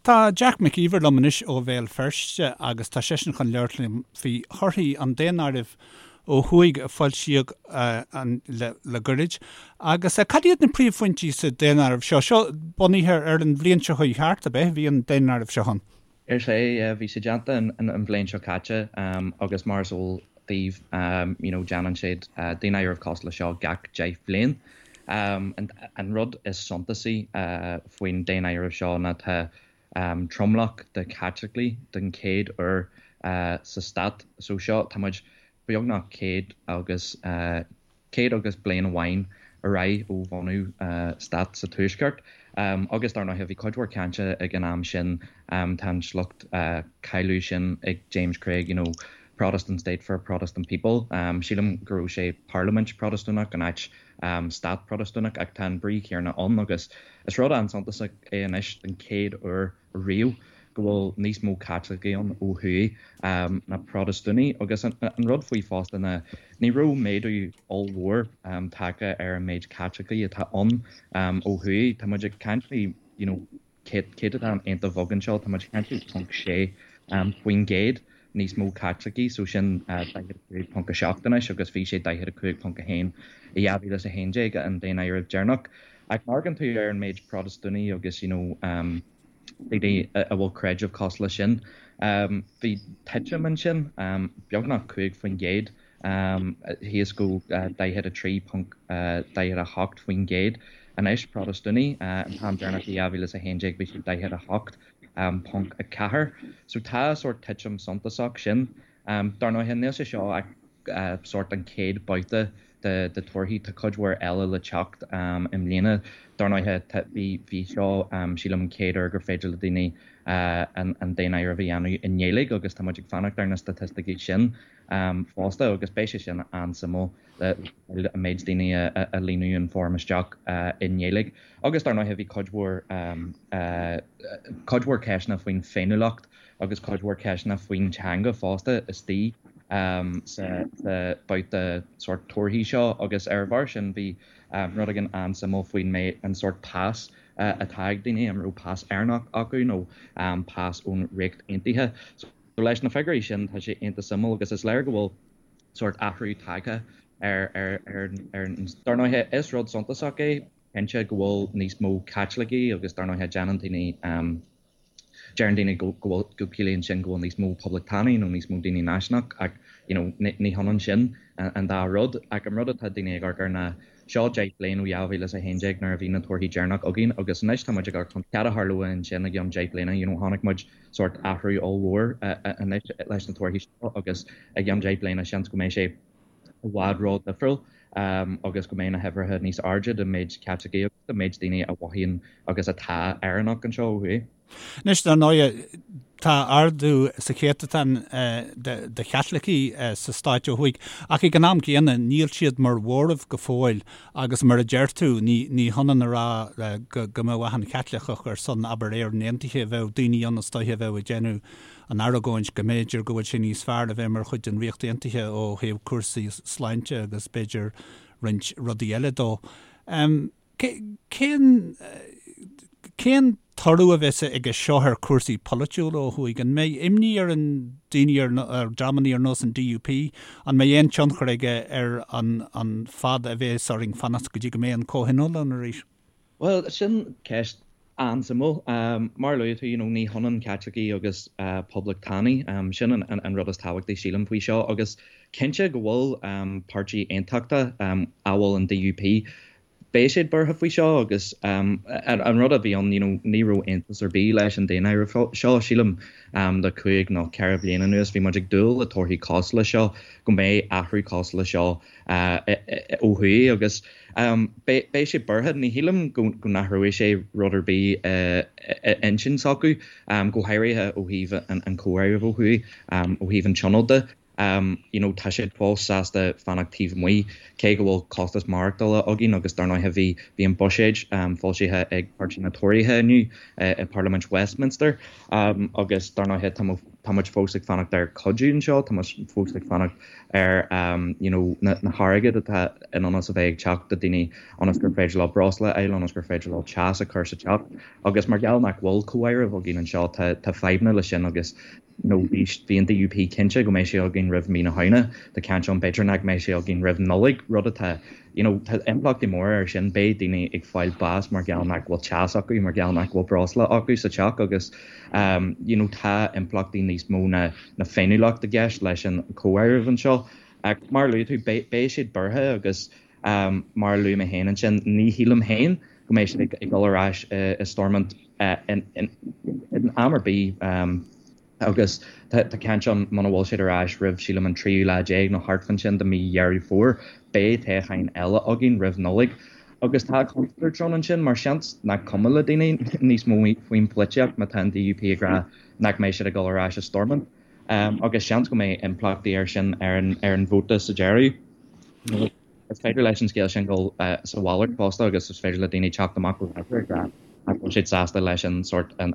Tá Jack Mac Íomhair liom anois ó Bhéal Feirste agus tá seisean chun labhairt liom faoi thorthaí an daonáirimh ó thuaidh a foilsíodh le goirid. Agus cad iad na príomhphointí sa daonáireamh seo? Seo bunaithe ar an bhliain seo chuaigh thart, ab ea? Bhí an daonáireamh seo ann. Is ea, bhí sé déanta an bhliain seo caite agus mar is eol daoibh, you know, déanann siad daonáireamh cosúil le seo gach 10 bhliain. An rud is suntasaí faoin daonáireamh seo ná tá tromlach de Chaitlicigh den chéad uair sa stát so seo, tá muid beagnach 100 agus 100 agus bliain amháin ar aghaidh ó bhunú stát sa Tuaisceart. Agus dar ndóighe bhí cuid mhór cainte ag an am sin, tá an sliocht cáiliúil sin ag James Craig, you know, Protestant state for a Protestant people. Sílim go raibh sé parlaimint Protastúnach in áit stát Protastúnach ach tá an brí chéanna ann agus is rud an-suntasach é anois den chéad uair riamh go bhfuil níos mó Caitlicigh ann ó thuaidh ná Protastúnaigh agus an rud faoi fosta ná ní raibh méadú ollmhór tagtha ar an méid Caitlicigh atá ann ó thuaidh. Tá muid ag caint faoi you know céatadán iontach beag anseo, tá muid ag caint faoi 0.6% níos mó Caitlicigh, so sin 45.7 anois agus bhí sé 45.1 i 2011, an daonáireamh deireanach. Ach má amharcann tú ar an méid Protastúnaigh agus you know daoine a bhfuil creideamh cosúil leis sin, bhí titim ansin, beagnach 5%. thíos go 43.48% anois, Protastúnaigh, an t-am deireanach i 2011 bhí siad 48.4. So tá sórt titim suntasach sin. Dar ndóighe níl sé seo ach sórt an chéad babhta de torthaí, tá cuid mhór eile le teacht i mbliana. Dar ndóighe bhí seo sílim an chéad uair gur féidir le daoine an daonáireamh a dhéanamh i nGaeilge agus tá muid ag fanacht ar na staitisticí sin. fosta agus beidh sé sin an-suimiúil le an méid daoine a líonadh an foirm isteach i nGaeilge. Agus dar ndóighe bhí cuid mhór cuid mhór ceisteanna faoin féiniúlacht agus cuid mhór ceisteanna faoin teanga fosta istigh sa babhta sórt torthaí seo agus ar a bharr sin bhí rud éigin an-suimiúil faoin méid an sórt pas atá ag daoine, an raibh pas Éireannach acu nó pas ón Ríocht Aontaithe. So leis na figiúirí sin tá sé iontach suimiúil agus is léir go bhfuil sórt athrú tagtha ar ar ar ar Dar ndóighe is rud suntasach é cinnte go bhfuil níos mó Caitlicigh agus dar ndóighe déanann daoine deireann daoine go go bhfuil go ciallaíonn sin go bhfuil níos mó poblachtánaigh nó níos mó daoine náisiúnach ach you know ní hionann sin an dá rud ach an rud atá daoine ag amharc air ná Seo 10 bliain ó 2011 nuair a bhí na torthaí deireanach againn agus anois tá muid ag amharc chun cad a tharlóidh ansin i gceann 10 bliana, you know chonaic muid sórt athrú ollmhór anois leis na torthaí seo agus i gceann 10 bliana seans go mbeidh sé i bhfad ró-dhifriúil agus go mbeidh na huimhreacha níos airde den méid Caitlicigh agus den méid daoine a mhothaíonn agus atá Éireannach anseo ó thuaidh. Anois, dar ndóighe, tá ardú sa chéatadán de Chaitlicigh sa stáit ó thuaidh, ach ag an am céanna, níl siad mar mhóramh go fóill agus mar a deir tú, ní hionann a rá go mbeadh achan Chaitliceach ar son, abair, Éirinn Aontaithe, bheadh daoine ann is dóiche a bheadh ag déanamh an argóint go mb'fhéidir go bhfuil sé níos fearr a bheith mar chuid den Ríocht Aontaithe ó thaobh cúrsaí sláinte agus b'fhéidir roinnt rudaí eile dó. Cén cén toradh a bheas aige seo ar chúrsaí polaitiúla ó thuaidh? An mbeidh imní ar an daoine ar dreamanna ar nós an DUP? An mbeidh aon tionchar aige ar an an fad a bheas orainn fanacht go dtí go mbeidh an comhthionól ann arís? Bhuel, sin ceist an-suimiúil. Mar a luaigh tú, you know, ní hionann Caitlicigh agus poblachtánaigh. Sin an rud is tábhachtaí, sílim, faoi seo. Agus cinnte go bhfuil páirtí aontachtach, amhail an DUP, beidh siad buartha faoi seo agus an rud a bhí ann, you know, ní raibh iontas ar bith leis an daonáireamh seo, sílim, le cúig nó ceithre bliana anuas bhí muid ag dúil le torthaí cosúil le seo, go mbeidh athrú cosúil le seo ó thuaidh agus beidh siad buartha. Ní shílim go n-athróidh sé rud ar bith i intinn s'acu, go háirithe ó thaobh an chomhairimh ó thuaidh, ó thaobh an tionóil de. You know tá siad fós sásta fanacht taobh amuigh, cé go bhfuil costas maireachtála againn agus dar ndóighe bhí bhí an buiséad foilsithe ag Páirtí na Tóraithe inniu i Parlaimint Westminster agus dar ndóighe tá mo. Tá muid fós ag fanacht ar cuidiú anseo, tá muid fós ag fanacht ar you know na hairgead atá in ionas a bheith ag teacht do daoine ionas gur féidir leo breosla a fháil, ionas gur féidir leo teas a chur sa teach. Agus mar gheall nach bhfuil comháireamh againn anseo tá tá fadhbanna leis sin agus you know bhí bhí an DUP cinnte go mbeidh sé againn roimh mí na Samhna, tá caint ann b'fhéidir nach mbeidh sé againn roimh Nollaig, rud atá you know tá impleachtaí móra air sin, beidh daoine ag fáil bás mar gheall nach bhfuil teas acu, mar gheall nach bhfuil breosla acu sa teach agus um you know tá impleachtaí níos mó ná na féiniúlacht i gceist leis an comháireamh anseo. Ach mar a luaigh tú, beidh beidh siad buartha agus um mar a luaigh mé féin ansin, ní shílim féin go mbeidh siad ag ag dul ar ais i i Stormont in in in am ar bith um Agus tá caint ann, muna bhfuil siad ar ais roimh, sílim, an tríú lá déag nó thart fán sin de mí Dheireadh Fómhair, beidh toghcháin eile againn roimh Nollaig. Agus tá contúirt ann ansin, mar seans nach cuma le daoine níos mó faoin pholaitíocht má tá an DUP ag rá nach mbeidh siad ag dul ar ais i Stormont. Agus seans go mbeidh impleachtaí air sin ar an vóta sa deireadh. Is féidir leis an scéal sin dul sa mhalairt fosta agus is féidir le daoine teacht amach go láidir ag rá nach bhfuil siad sásta leis an sórt an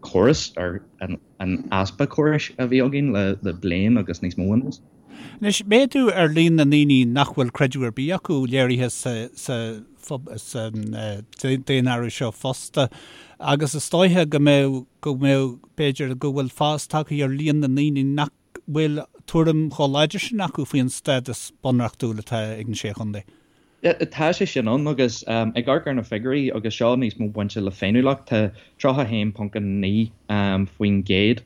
córas ar an easpa córais a bhí againn le bliain agus níos mó anuas. Anois, méadú ar líon na ndaoine nach bhfuil creideamh ar bith acu léirithe sa daonáireamh seo fosta agus is dóiche go mbeadh, go mbeadh, b'fhéidir go bhfuil fás tagtha ar líon na ndaoine nach bhfuil tuairim chomh láidir sin acu faoin stádas bunreachtúil atá ag na Sé Chontae. Tá sé sin ann agus ag amharc ar na figiúirí agus seo níos mó bainte le féiniúlacht, tá 31.9%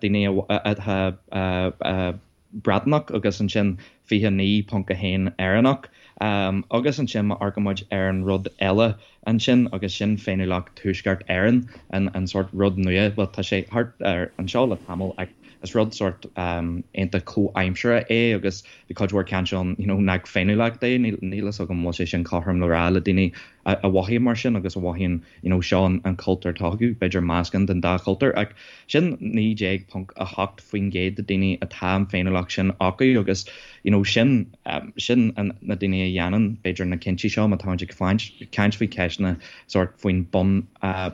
daoine atá Breatnach agus ansin 29.1 Éireannach. Agus ansin má amharcann muid ar an rud eile ansin agus sin féiniúlacht Tuaisceart Éireann, an sórt rud nua, bhuel tá sé thart ar anseo le tamall ach is rud sórt iontach comhaimseartha é agus bhí cuid mhór caint ann you know nach féiniúlacht é, níl fhios agam an bhfuil sé sin cothrom le rá le daoine a mhothaíonn mar sin agus a mhothaíonn you know seo an cultúr atá acu, b'fhéidir meascán den dá chultúr ach sin 19.8% de daoine atá an féiniúlacht sin acu agus you know sin sin na daoine a dhéanann b'fhéidir na cinntí seo má táimid ag caint faoi ceisteanna sórt faoin bun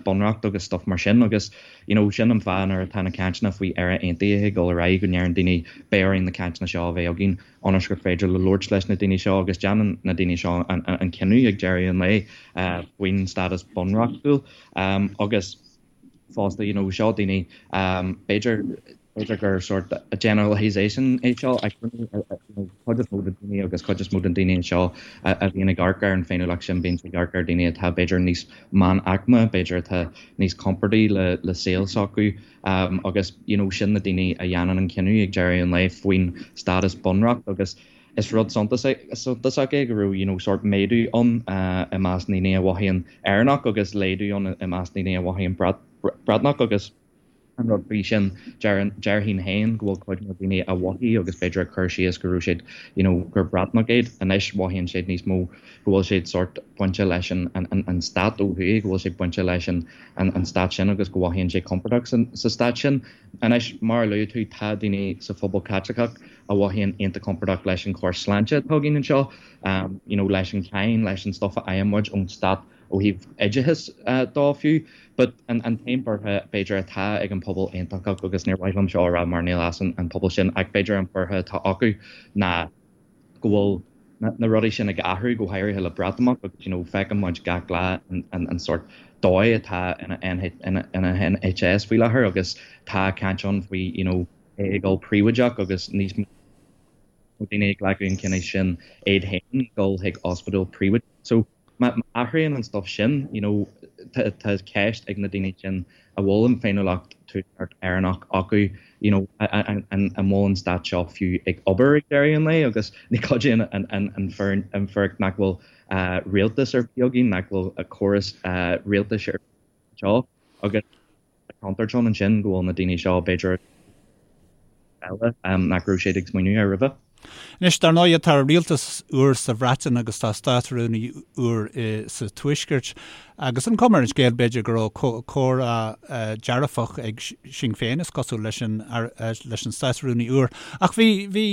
bunreacht agus stuff mar sin agus you know sin an fáth nuair atá na cainteanna faoi Éire Aontaithe ag dul ar aghaidh go ndeireann daoine beidh orainn na cainteanna seo a bheith againn ionas gur féidir le labhairt leis na daoine seo agus déanann na daoine seo an cinneadh ag deireadh an lae faoin stádas bunreachtúil agus fosta you know seo daoine b'fhéidir b'fhéidir gur sort generalisation é seo ach cuid is mó de daoine agus cuid is mó den daoine seo a bhíonn ag amharc ar an féiniúlacht sin bíonn ag amharc ar daoine atá b'fhéidir níos meánaicme b'fhéidir atá níos compordaí le le saol s'acu Agus you know sin na daoine a dhéanann an cinneadh ag deireadh an lae faoin stádas bunreacht agus is rud suntasach é go raibh you know sórt méadú ann i measc ndaoine a mhothaíonn Éireannach agus laghdú ann i measc daoine a mhothaíonn Breatnach agus an rud faoi sin déarfainn féin go bhfuil cuid mhór daoine a mhothaigh agus b'fhéidir a chuir síos go raibh siad you know gur Breatnach iad anois mhothaíonn siad níos mó go bhfuil siad sórt bainte leis an an stát ó thuaidh go bhfuil siad bainte leis an an stát sin agus go mhothaíonn siad compordach sa stát sin. Anois, mar a luaigh tú, tá daoine sa phobal Caitliceach a mhothaíonn iontach compordach leis an chóras sláinte atá againn anseo, you know leis an cháin, leis an stuff a fhaigheann muid ón stát ó thaobh oideachais dó fiú. But an t-aon buartha b'fhéidir atá ag an pobal aontachtach, agus níor mhaith liom seo a rá mar níl as an pobal sin, ach b'fhéidir an buartha atá acu ná, go bhfuil na rudaí sin ag athrú, go háirithe le Breatimeacht agus you know feiceann muid gach lá an sórt dóigh atá ina NHS faoi láthair agus tá caint ann faoi you know é ag dul príobháideach agus níos mó daoine ag glacadh an chinnidh sin iad féin dul chuig ospidéal príobháideach. So Má athraíonn an stuff sin, you know, tá ceist ag na daoine sin a bhfuil an féiniúlacht Tuaisceart Éireannach acu, you know, an bhfuil an stát seo fiú ag obair ag deireadh an lae agus ní chuidíonn an fhíric nach bhfuil rialtas ar bith againn, nach bhfuil córas rialtais ar bith anseo agus tá contúirt ann ansin go bhfuil na daoine seo b'fhéidir eile nach raibh siad ag smaoineamh air roimhe. Anois, dar ndóigh, tá rialtas úr sa Bhreatain agus tá Státrúnaí úr sa Tuaisceart agus an chuma ar an scéal, b'fhéidir, go raibh comhrá dearfach ag Sinn Féin, is cosúil, leis an leis an Státrúnaí úr. Ach bhí bhí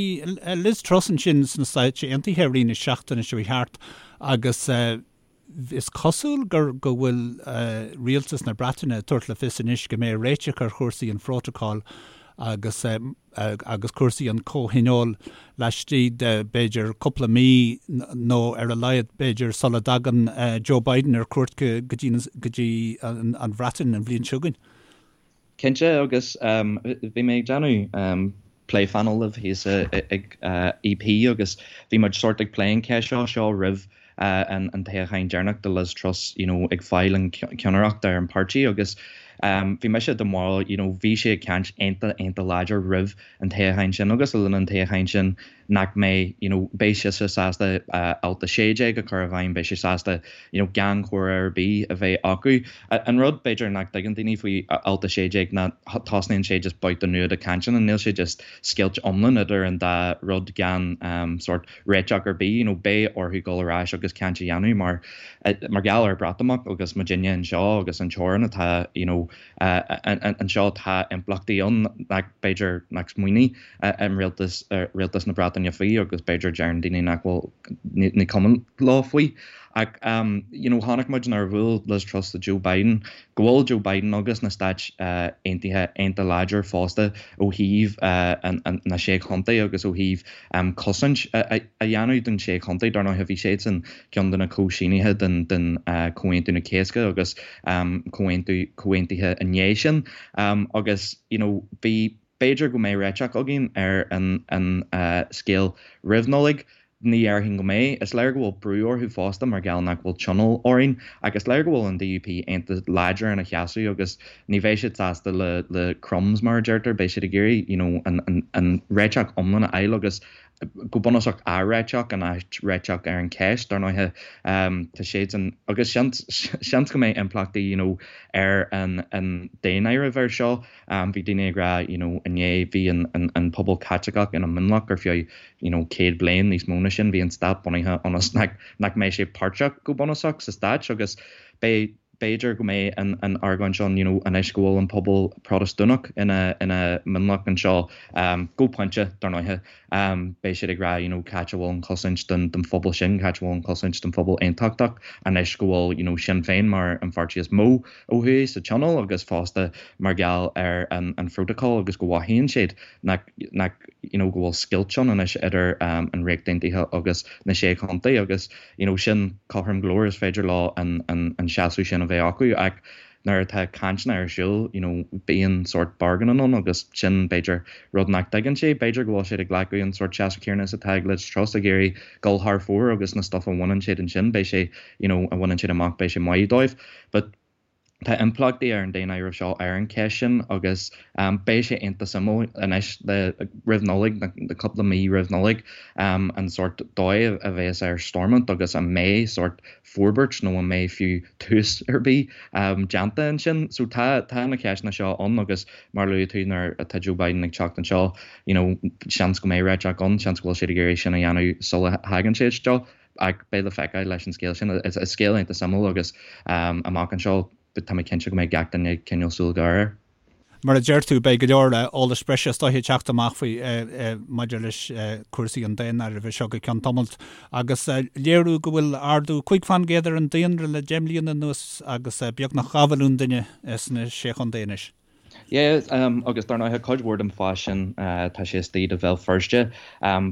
Liz Truss ansin sna Stáit Aontaithe i rith na seachtaine seo thart agus Is cosúil gur go bhfuil rialtas na Breataine ag tabhairt le fios anois go mbeidh réiteach ar chúrsaí an phrótacail. agus agus cúrsaí an chomhthionóil laistigh de b'fhéidir cúpla mí nó ar a laghad b'fhéidir sula dtagann Joe Biden ar cuairt go dtí an Bhreatain an bhliain seo chugainn. Cinnte, agus bhí mé ag déanamh plé phainéil libh thíos ag EP agus bhí muid sórt ag plé an cheist seo seo roimh an toghchán deireanach do Liz Truss you know ag fáil an ceannaireacht ar an páirtí agus bhí mise den bharúil you know bhí sí ag caint iontach iontach láidir roimh an toghchán sin agus le linn an toghcháin sin nach mbeidh you know beidh sise sásta alt 16 a chur i bhfeidhm, beidh sí sásta you know gan comhrá ar bith a bheith acu. An rud b'fhéidir nach dtuigeann daoine faoi alt 16 ná tosnaíonn sé just babhta nua de cainteanna, níl sé just scoilt iomlán idir an dá rud gan sórt réiteach ar bith, you know beidh orthu dul ar ais agus caint a dhéanamh mar mar gheall ar Breatimeacht agus muidinne anseo agus an teorainn atá you know anseo tá impleachtaí ann nach b'fhéidir nach smaoinigh an rialtas, rialtas na Breataine faoi agus b'fhéidir deireann daoine nach bhfuil, ní cuma leo faoi. Ach you know chonaic muid nuair a bhuail Liz Truss le Joe Biden go bhfuil Joe Biden agus na Stáit Aontaithe iontach láidir fosta ó thaobh na Sé Chontae agus ó thaobh cosaint a dhéanamh don Sé Chontae. Dar ndóigh bhí siadsan ceann de na comhshínithe den den Comhaontú na Cásca agus comhaontú comhaontuithe i ndiaidh sin agus you know bhí B'fhéidir go mbeidh réiteach againn ar an scéal roimh Nollaig. Ní dhéarfainn go mbeidh. Is léir go bhfuil brú orthu fosta mar gheall nach bhfuil tionól orainn. Ach is léir go bhfuil an DUP iontach láidir ina sheasamh agus ní bheidh siad sásta le crumbs mar a deirtear. Beidh siad ag iarraidh you know an réiteach iomlán a fháil agus go bunúsach athréiteach in áit réiteach ar an cheist. Dar ndóighe tá siadsan agus seans seans go mbeidh impleachtaí you know ar an daonáireamh air seo. Bhí daoine ag rá you know inné bhí an an pobal Caitliceach ina mionlach ar feadh you know 100 bliain níos mó ná sin bhí an stát bunaithe ionas nach nach mbeidh sé páirteach go bunúsach sa stáit agus beidh b'fhéidir go mbeidh an an argóint ann you know anois go bhfuil an pobal Protastúnach ina ina mionlach anseo go pointe dar ndóighe beidh siad ag rá you know cá háit a bhfuil an chosaint don don phobal sin cá háit a bhfuil an chosaint don phobal aontachtach anois go bhfuil you know Sinn Féin mar an pháirtí is mó ó thuaidh sa tionól agus fosta mar gheall ar an an phrótacal agus go mothaíonn siad nach nach you know go bhfuil scoilt ann anois idir an Ríocht Aontaithe agus na Sé Chontae agus you know sin cothrom go leor is féidir leo an an an seasamh sin a bheith acu ach nuair atá cainteanna ar siúl you know bíonn sórt bargaining ann agus sin b'fhéidir rud nach dtuigeann siad b'fhéidir go bhfuil siad ag glacadh an sórt seasamh céanna is atá ag Liz Truss ag iarraidh dul thar fóir agus na stuff a bhaineann siad ansin beidh sé you know a bhaineann siad amach beidh sé maith dóibh but tá impleachtaí ar an daonáireamh seo ar an cheist sin agus beidh sé iontach suimiúil anois le roimh Nollaig, na cúpla mí roimh Nollaig, an sórt dóigh a bheas ar Stormont agus an mbeidh sórt forbairt nó an mbeidh fiú tús ar bith déanta ansin. So tá tá na ceisteanna seo ann agus mar a luaigh tú nuair atá Joe Biden ag teacht anseo, you know, seans go mbeidh réiteach ann, seans go bhfuil siad ag iarraidh sin a dhéanamh sula thagann sé isteach. Ach beidh le feiceáil leis an scéal sin. Is scéal iontach suimiúil agus amach anseo tá mé cinnte go mbeidh gach duine ag coinneáil súil ghéar air. Mar a deir tú, beidh go leor eolais breise is dóiche ag teacht amach faoi maidir leis cúrsaí an daonáirimh seo go ceann tamaill. Agus léiriú go bhfuil ardú 5% ar an daonra le 10 mbliana anuas agus beagnach 2 mhilliún duine sna Sé Chontae anois. Yeah, agus dar ndóighe cuid mhór den fás sin tá sé istigh do Bhéal Feirste.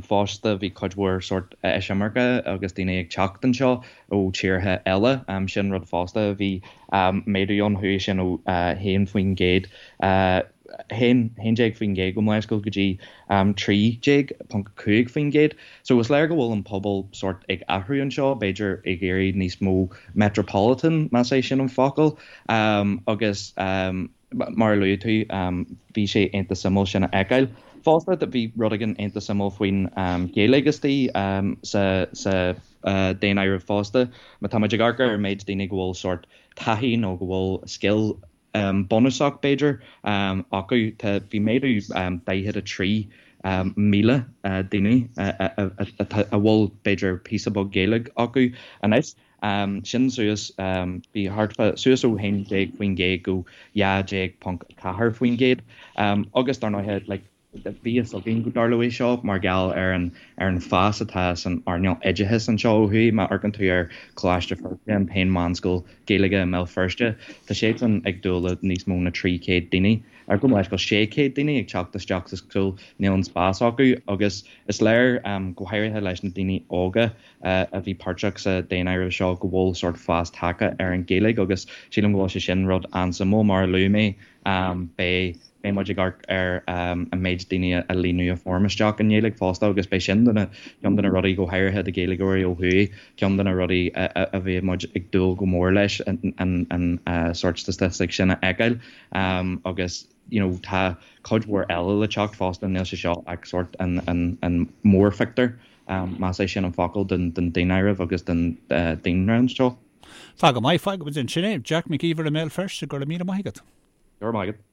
Fosta bhí cuid mhór sórt eisimirce agus daoine ag teacht anseo ó tíortha eile. Sin rud fosta a bhí méadú ann, chuaigh sin ó 1%, 11% gabh mo leithscéal go dtí 13.5%. So is léir go bhfuil an pobal sórt ag athrú anseo, b'fhéidir ag iarraidh níos mó metropolitan, más é sin an focal. Agus mar a luaigh tú, bhí sé iontach suimiúil sin a fheiceáil. Fosta, bhí rud éigin iontach suimiúil faoin Ghaeilge istigh sa sa daonáireamh fosta. Má tá muid ag amharc ar an méid daoine go bhfuil sórt taithí nó go bhfuil scil bunúsach, b'fhéidir, acu. Tá, bhí méadú 43,000 daoine a bhfuil, b'fhéidir, píosa beag Gaeilge acu anois. Sin suas, bhí thart fá, suas ó 11% go 12.4%. Agus dar ndóighe, like, Bhí fhios againn go dtarlóidh seo mar gheall ar an ar an fás atá san earnáil oideachais anseo ó thuaidh. Má amharcann tú ar Choláiste Feirste, an t-aon mheánscoil Gaeilge i mBéal Feirste, tá siadsan ag dúil le níos mó na 300 daoine, ar gabh mo leithscéal, 600 daoine ag teacht isteach sa scoil, níl an spás acu agus is léir, go háirithe leis na daoine óga a bhí páirteach sa daonáireamh seo, go bhfuil sórt fás tagtha ar an Ghaeilge agus sílim go bhfuil sé sin rud an-suimiúil. Mar a luaigh mé, beidh. Beidh muid ag amharc ar an méid daoine a líonadh an foirm isteach i nGaeilge fosta agus beidh sin de na, ceann de na rudaí, go háirithe do Ghaeilgeoirí ó thuaidh, ceann de na rudaí a bheidh muid ag dúil go mór leis an sórt statistic sin a fheiceáil agus you know tá cuid mhór eile le teacht fosta, níl sé seo ach sórt an an mórphictiúr, más é sin an focal, den daonáireamh agus den daonroinnt seo. Tá go maith, fágfaidh muid ansin é. Jack Mac Íomhair i mBéal Feirste, go raibh míle maith agat. Go raibh maith agat.